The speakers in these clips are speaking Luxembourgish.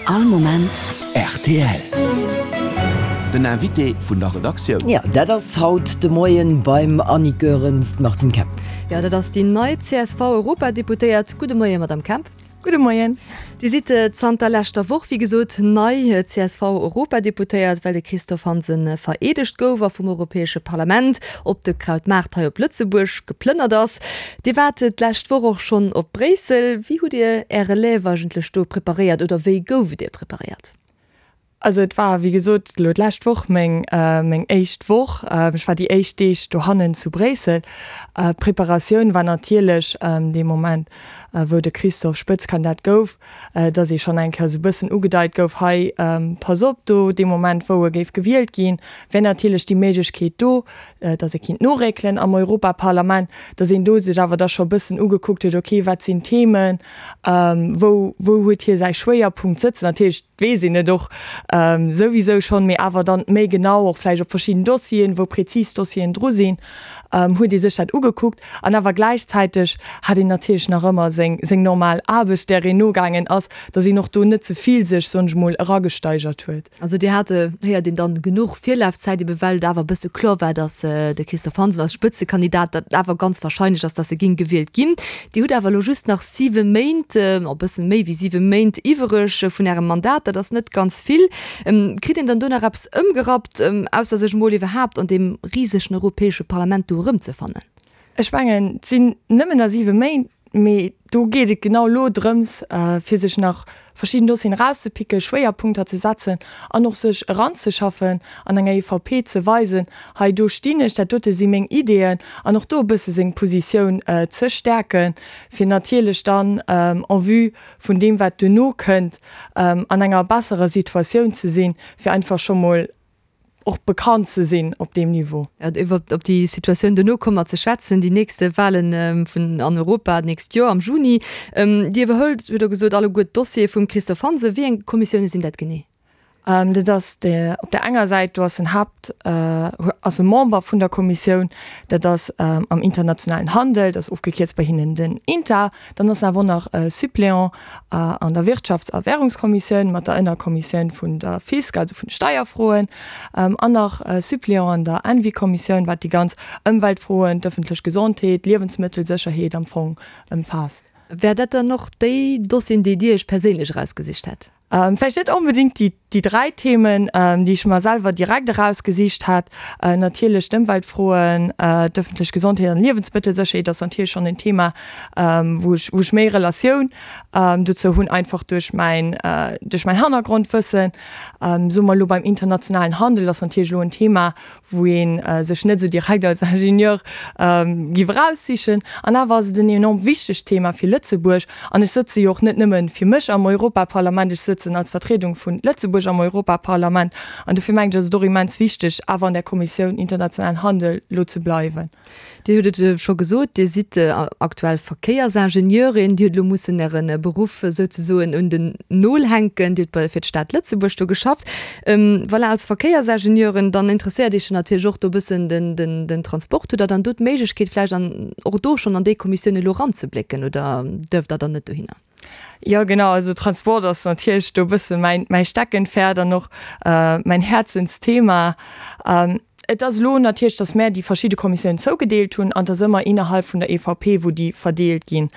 All Moment rtl. Den Invité vun der Redaktioun. Jo, dat ass haut de Moien beim Annick Goerens d'Martine Kemp. Jo, dat ass déi nei CSV-Europadeputéiert. Gudde Moien, Madamm Kemp. Gudde Moien. Dir sidd zanter leschter Woch, wéi gesot, nei CSV-Europadeputéiert, well de Christophe Hansen vereedegt gouf a vum Europäesche Parlament op de Krautmaart hei op Lëtzebuerg geplënnert ass. Dir waart d'lescht Woch och schonn op Bréissel. Wéi hutt Dir Är Relève eigentlech do preparéiert oder wéi gouf et Dir preparéiert? Also et war, wéi gesot, elo d'lescht Woch meng meng éischt Woch. Ech war déi éischt Deeg dohannen zu Bréissel. D'Preparatioun war natierlech dee Moment, wou de Christophe Spëtzkandidat gouf, datt ee schonn eng Kéier esou e bëssen ugedeit gouf, hei pass op, do dee Moment wou e géif gewielt ginn, wär natierlech déi Méiglechkeet do, datt ee kinnt noréckelen am Europaparlament, datt een do sech awer da scho e bëssen ugekuckt huet, okay, wat sinn d'Themen, wou wou huet hie säi Schwéierpunkt sëtzen. Natierlech weess een et och souwisou schonn, mee awer dann méi genau och vläicht op verschidden Dossieren, wou prezis Dossieren dru sinn, huet ee sech dat ugekuckt. An awer gläichzäiteg hat een natierlech nach ëmmer seng, seng normal Aarbecht, där een nogaangen ass, datt een och do net ze vill sech, soen ech mol, eragesteigert huet. Also Dir hat, héiert een dann, genuch Virlafzäit, ebe well et awer e bësse kloer war, datt de Christophe Hansen als Spëtzekandidat, datt et awer ganz wahrscheinlech ass, datt e géing gewielt ginn. Dir hutt awer elo just nach siwe Méint, e bëssen méi wéi siwe Méint iwwereg vun Ärem Mandat. Dat ass net ganz vill. Kritt een dann do nach eppes ëmgerappt, ausser sech emol iwwerhaapt an deem risegen Europäesche Parlament do erëmzefannen? Ech mengen, et sinn nëmmen nach siwe Méint, mee do geet et genau elo drëms, fir sech nach verschidden Dossieren erauszepicken, Schwéierpunkter ze setzen an och sech eranzeschaffen an enger EVP ze weisen, hei do stinn ech, dat dote si meng Ideeën an och do e bësse seng Positioun ze stäerken, fir natierlech dann en vue vun deem wat duerno kënnt an enger besserer Situatioun ze sinn, fir einfach scho mol och bekannt ze sinn op deem Niveau. Iwwer op déi Situatioun duerno komme mer ze schwätzen, déi nächste Wahlen vun an Europa d'nächst Joer am Juni. Dir iwwerhëlt, hutt Der gesot, alleguer d'Dossiere vum Christophe Hansen. Wéi eng Kommissioune sinn dat genee? Dat ass op där enger Säit, do ass en Haapt, ass e Member vun der Kommissioun, dat ass am internationalen Handel, dat ass ofgekierzt bei hinnen den INTA. Dann ass en awer och nach Suppléant an der Wirtschafts a Währungskommissioun mat der Ënnerkommissioun vun der Fisc, also vun de Steierfroen, an nach Suppléant an der Envi-Kommissioun, wat déi ganz Ëmweltfroen, d'ëffentlech Gesondheet, d'Liewensmëttelsécherheet am Fong ëmfaasst. Wär dat dann och déi Dossieren, déi Dir Iech perséinlech erausgesicht hätt? Vläicht net onbedéngt déi déi 3 Themen, déi ech mer selwer direkt erausgesicht hat. Natierlech d'Ëmweltfroen, d'ëffentlech Gesondheet an Liewensmëttelsécherheet ass natierlech schonn en Thema, wou ech wou ech méi Relatioun dozou hunn, einfach duerch mäin duerch mäin Hannergrondwëssen. Soe mer elo beim internationalen Handel ass natierlech elo en Thema, wou ee sech net esou direkt als Ingenieur giff eraussichen. An awer ass et en enorm wichtegt Thema fir Lëtzebuerg. An ech sëtze jo och net nëmme fir mech am Europaparlament, ech sëtzen als Vertriedung vu Lëtzebuerg am Europaparlament. An dofir mengen ech, ass et och immens wichteg, awer an där Kommissioun internationalen Handel elo ze bleiwen. Dir hutt et scho gesot, Dir sidd aktuell Verkéiersingenieurin. Dir hutt elo mussen Äre Beruff souzesoen un den Nol hänken. Dir hutt bei fir d'Stad Lëtzebuerg do geschafft. Voilà, als Verkéiersingenieurin, dann interesséiert Iech jo natierlech och do e bëssen den Transport. Hutt Der dann do d'Méiglechkeet vläicht an och do schonn an déi Kommissioun elo eranzeblécken oder duerft Der dann net dohinner? Jo genau, also Transport ass natierlech do e bësse mäin mäi Steckenpferd an och mäin Häerzensthema. Et ass elo natierlech, datt mär déi verschidde Kommissiounen zougedeelt hunn an et ass ëmmer innerhalb vun der EVP wou déi verdeelt ginn.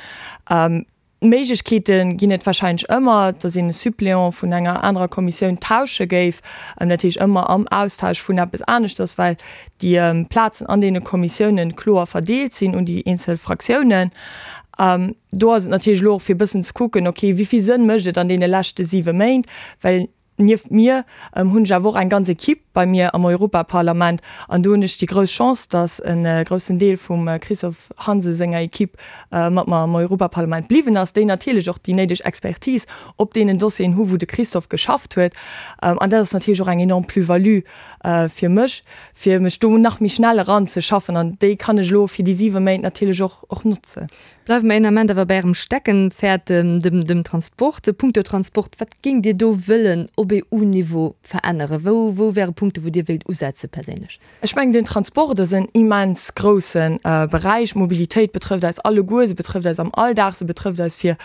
Méiglechkeete ginn et wahrscheinlech ëmmer, datt een e Suppléant vun enger anerer Kommissioun tausche géif, dat heescht ëmmer am Austausch vun eppes aneschters, well déi Plazen an deene Kommissiounen kloer verdeelt sinn un déi eenzel Fraktiounen. Do ass et natierlech elo och fir e bëssen ze kucken, okay, wéi vill Sënn mécht et an deene leschte siwe Méint, well nieft mir hunn ech awer och eng ganz Equipe bei mir am Europaparlament an do hunn ech déi grouss Chance, datt e groussen Deel vum Christophe Hansen senger Equipe mat mer am Europaparlament bliwwen ass, déi natierlech och déi néideg Expertise op deenen Dossieren hu wou de Christophe geschafft huet. An dat ass natierlech och eng enorm Plus-value fir mech, fir mech do nach méi schnell eranzeschaffen an déi kann ech elo fir déi siwe Méint natierlech och och notzen. Bleiwe mer een Ament awer bei Ärem Steckenpferd, dem dem Transport. Punkto Transport, wat géingt Dir do wëllen op EU-Niveau veränneren? Wou wou wär e Punkt? Punkte wou Dir wéilt usetze perséinlech? Ech mengen, den Transport ass en immens grousse Beräich. D'Mobilitéit betrëfft eis alleguer, se betrëfft eis am Alldag, se betrëfft eis fir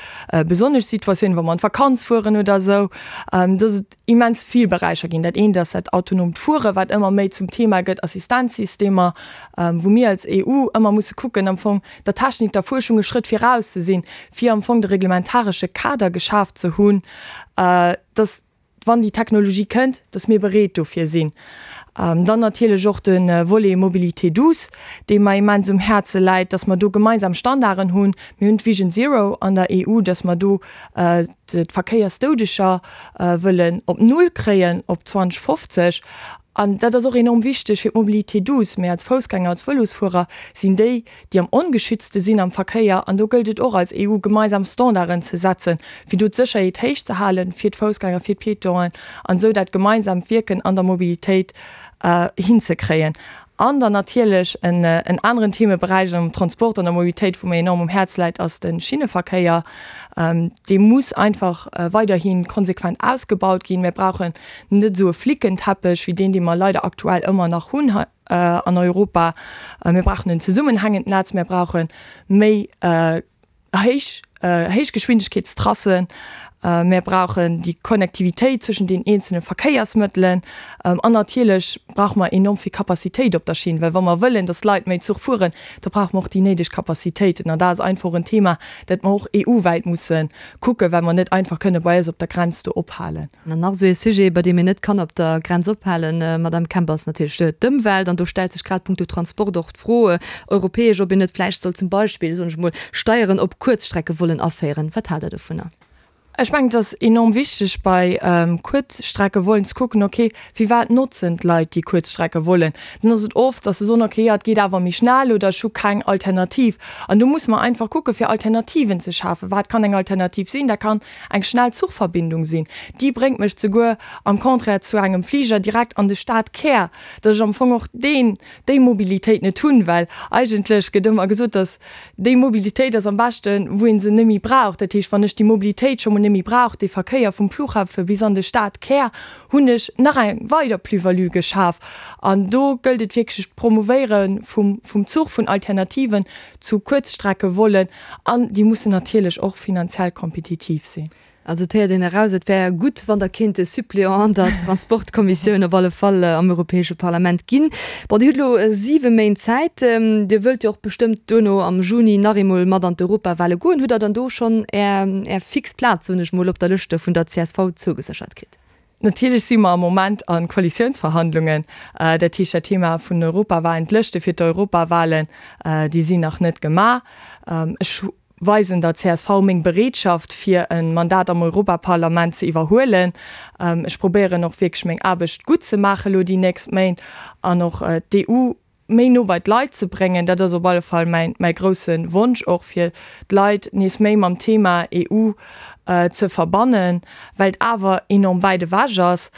besonnesch Situatiounen, wa mer an d'Vakanz fueren oder esou. Dass et immens vill Beräicher ginn. Dat eent ass dat autonoomt Fueren, wat ëmmer méi zum Thema gëtt, Assistenzsystemer, wou mir als EU ëmmer musse kucken, am Fong der Technik, der Fuerschung e Schrëtt viraus ze sinn, fir am Fong de reglementaresche Kader geschaf ze hunn, dass, wann déi Technologie kënnt, dass mir bereet dofir sinn. Dann natierlech och de Volet Mobilité douce, dee mer immens um Häerze läit, dass mer do gemeinsam Standarden hunn. Mir hunn d'Vision Zero an der EU, dass mer do d'Verkéiersdoudeger wëllen op Null kréien op 2050. An dat ass och enorm wichteg fir d'Mobilité douce. Mir als Foussgänger, als Vëlosfuerer sinn déi, déi am ongeschützte sinn am Verkéier. An do gëllt et och als EU gemeinsam Standarden ze setzen, fir do d'Sécherheet héich ze halen fir d'Foussgänger, fir d'Piétonen an esou dat gemeinsamt Wierken an der Mobilitéit hinzekréien. An dann natierlech en aneren Themeberäich am Transport an der Mobilitéit, wou mir enorm um Häerz läit, ass de Schinneverkéier. Dee muss einfach weiderhi konsequent ausgebaut ginn. Mir brauchen net esou e Flickenteppech wéi deen, dee mer leider aktuell ëmmer nach hunn hei an Europa. Mir brauchen en zesummenhängend Netz, mir brauche méi héich Héichgeschwindegkeetstrassen, mir brauchen déi Connectivitéit zwëschen den eenzelne Verkéiersmëttelen an natierlech brauche mer enorm vill Capacitéit op der Schinn, well wa mer wëllen, datt d'Leit méi Zuch fueren, da brauche mer och déi néideg Capacitéiten. An dat ass einfach och en Thema, dat mer och EU-wäit musse kucken, well mer net einfach kënne bei eis op der Grenz do ophalen. An nach esou ee Sujet, bei deem een net kann op der Grenz ophalen, Madame Kemp, ass natierlech d'Ëmwelt. An do stellt sech grad punkto Transport och d'Fro, europäesch, ob een net vläicht soll zum Beispill, soen ech emol, Steieren op Kuerzstrecke wollen aféieren. Wat haalt Der dovunner? Ech mengen, et ass enorm wichteg bei Kuerzstrecke wollen ze kucken, okay, firwat notzen d'Leit déi Kuerzstrecke wollen? Dann ass et oft, dass se soen, okay, jo, et geet awer méi schnell oder ech hu keng Alternativ. An do musse mer einfach kucke fir Alternativen ze schafen. Wat kann eng Alternativ sinn? Dat kann eng schnell Zuchverbindung sinn. Déi bréngt mech zeguer am Contraire zu engem Fliger direkt an de Stadkär, dass ech am Fong och deen, déi Mobilitéit net hunn, well eigentlech gëtt ëmmer gesot, dass déi Mobilitéit ass am beschten, wou ee se net méi brauch. Dat heescht, wann ech déi Mobilitéit scho mol net méi brauch, dee Verkéier vum Flughafe bis an de Stadkär, hunn ech nach eng weider Plus-value geschaf. An do gëllt et wierklech d'Promouvéiere vum, vum Zuch, vun Alternativen zu Kuerzstreckevollen, An déi mussen natierlech och finanziell kompetitiv sinn. Also et héiert een eraus, et wär gutt, wann Der kéint e Suppléant an der Transportkommissioun op alle Fall am Europäesche Parlament ginn. Bon, Dir hutt elo siwe Méint Zäit. Dir wëllt jo och bestëmmt duerno am Juni nach eemol mat an d'Europawale goen. Hutt Der dann do schonn Är, Är fix Plaz, soen ech mol, op der Lëscht vun der csv zougeséchert kritt? Natierlech si mer am Moment a Koalitiounsverhandlungen. Dat heescht, dat Thema vun den Europawahlen, d'Lëschte fir d'Europawahlen, déi sinn nach net gemaach. Ech weisen der csv meng Bereetschaft, fir e Mandat am Europaparlament ze iwwerhuelen. Ech probéieren och wierklech meng Aarbecht gutt ze maache lo déi nächst Méint an och d'EU méi no bei d'Leit ze bréngen. Dat ass op alle Fall mäin, mäi grousse Wonsch och, fir d'Leit nees méi mam Thema EU ze verbannen, well et awer enorm wäit ewech ass.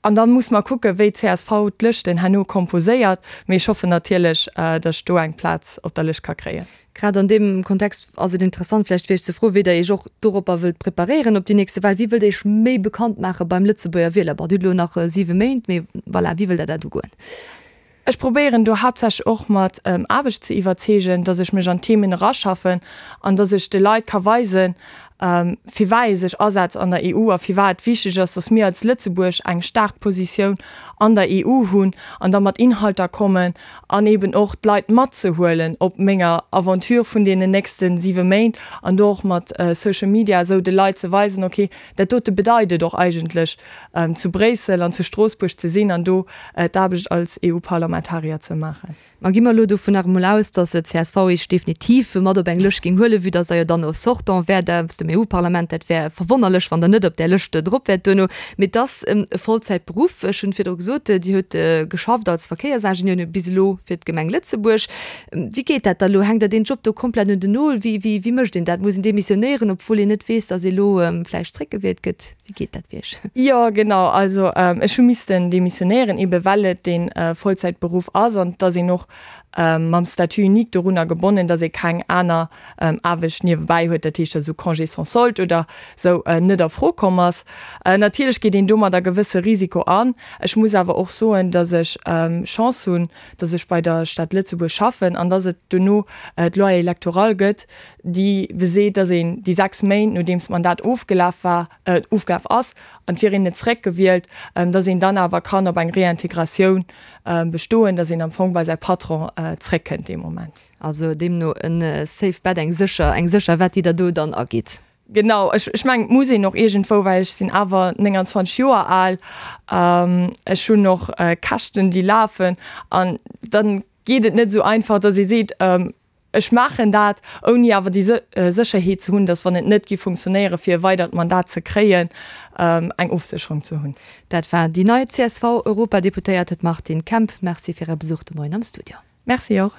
An da muss mer kucken, wéi csv d'Lëschten herno komposéiert. Mee ech hoffen natierlech, datt ech do eng Plaz op der Lëscht ka kréien. Grad an deem Kontext ass et interessant vläicht fir Iech ze froen, wéi Der Iech och doropper wëllt preparéieren op déi nächste Wahl. Wéi wëllt Der Iech méi bekannt maache beim Lëtzebuerger Wieler? Bon, Dir hutt elo nach siwe Méint, mee voilà, wéi wëllt Der dat ugoen? Ech probéieren do haaptsächlech och mat Aarbecht ze iwwerzeegen, dass ech mech an d'Themen eraschaffen an dass ech de Leit ka weisen, firwat ee sech asetzt an der EU a firwat et wichteg ass, dass mir als Lëtzebuerg eng staark Positioun an der EU hunn an da mat Inhalter kommen an eben och d'Leit matzehuelen op menger Aventure vun deenen nächste siwe Méint an do och mat Social Media esou de Leit ze weisen, okay, dat dote bedeit et och eigentlech zu Bréissel an zu Stroossbuerg ze sinn an do d'Aarbecht als EU-Parlamentarier ze maachen. Ma gi mer elo dovun nach emol aus, datt csv Iech definitiv mat op eng Lëscht géing huelen, vue datt Der jo dann och Sortant wäert aus dem EU-Parlament. Dat wär verwonnerlech, wann Der net op där Lëscht drop wäert duerno. Mee et ass e Vollzäitberuff. Ech hunn virdru gesot, Dir hutt geschafft als Verkéiersingenieur bis elo fir d'Gemeng Lëtzebuerg. Wéi geet dat da elo? Hänkt Der deen Job do komplett un den Nol? Wéi, wéi, wéi mécht een dat? Muss een demissionéieren, obwuel een net weess, datt ee elo vläicht zréckgewielt gëtt? Wéi geet dat fir Iech? Jo, genau. Also ech hu missten demissionéieren, ebe well et dee Vollzäitberuff ass an et ass een och mam Statut unique dorunner gebonnen, datt ee keng aner Aarbecht niewebäi huet, dat heescht esou Congés. sans solde oder sou net a Fro komm ass. Natierlech geet een domadder gewësse Risiko an. Ech muss awer och soen, datt ech Chance hunn, datt ech bei der Stad Lëtzebuerg schaffen an datt et dono d'Loi électorale gëtt, déi beseet, datt een déi 6 Méint, nodeems d'Mandat ofgelaf war, ofgelaf ass an et wier een net zréckgewielt, datt een dann awer kann op eng Réintégratioun bestoen, datt een am Fong bei säi Patron zréckkënnt dee Moment. Also deemno e safe bet, eng sécher, eng sécher Wett, déi Der do dann agitt. Genau, ech, ech mengen, et muss een och iergendwou, well ech sinn awer 29 Joer al, ech hunn och Käschten, déi lafen an dann geet et net esou einfach, datt ee seet, Ech maachen dat, ouni awer déi Sécherheet ze hunn, datt, wann et net géif funktionéieren, fir e weidert Mandat ze kréien, eng Ofsécherung ze hunn. Dat war déi nei CSV-Europadeputéierte d'Martine Kemp. Merci fir Är Besuch de Moien am Studio. Merci och.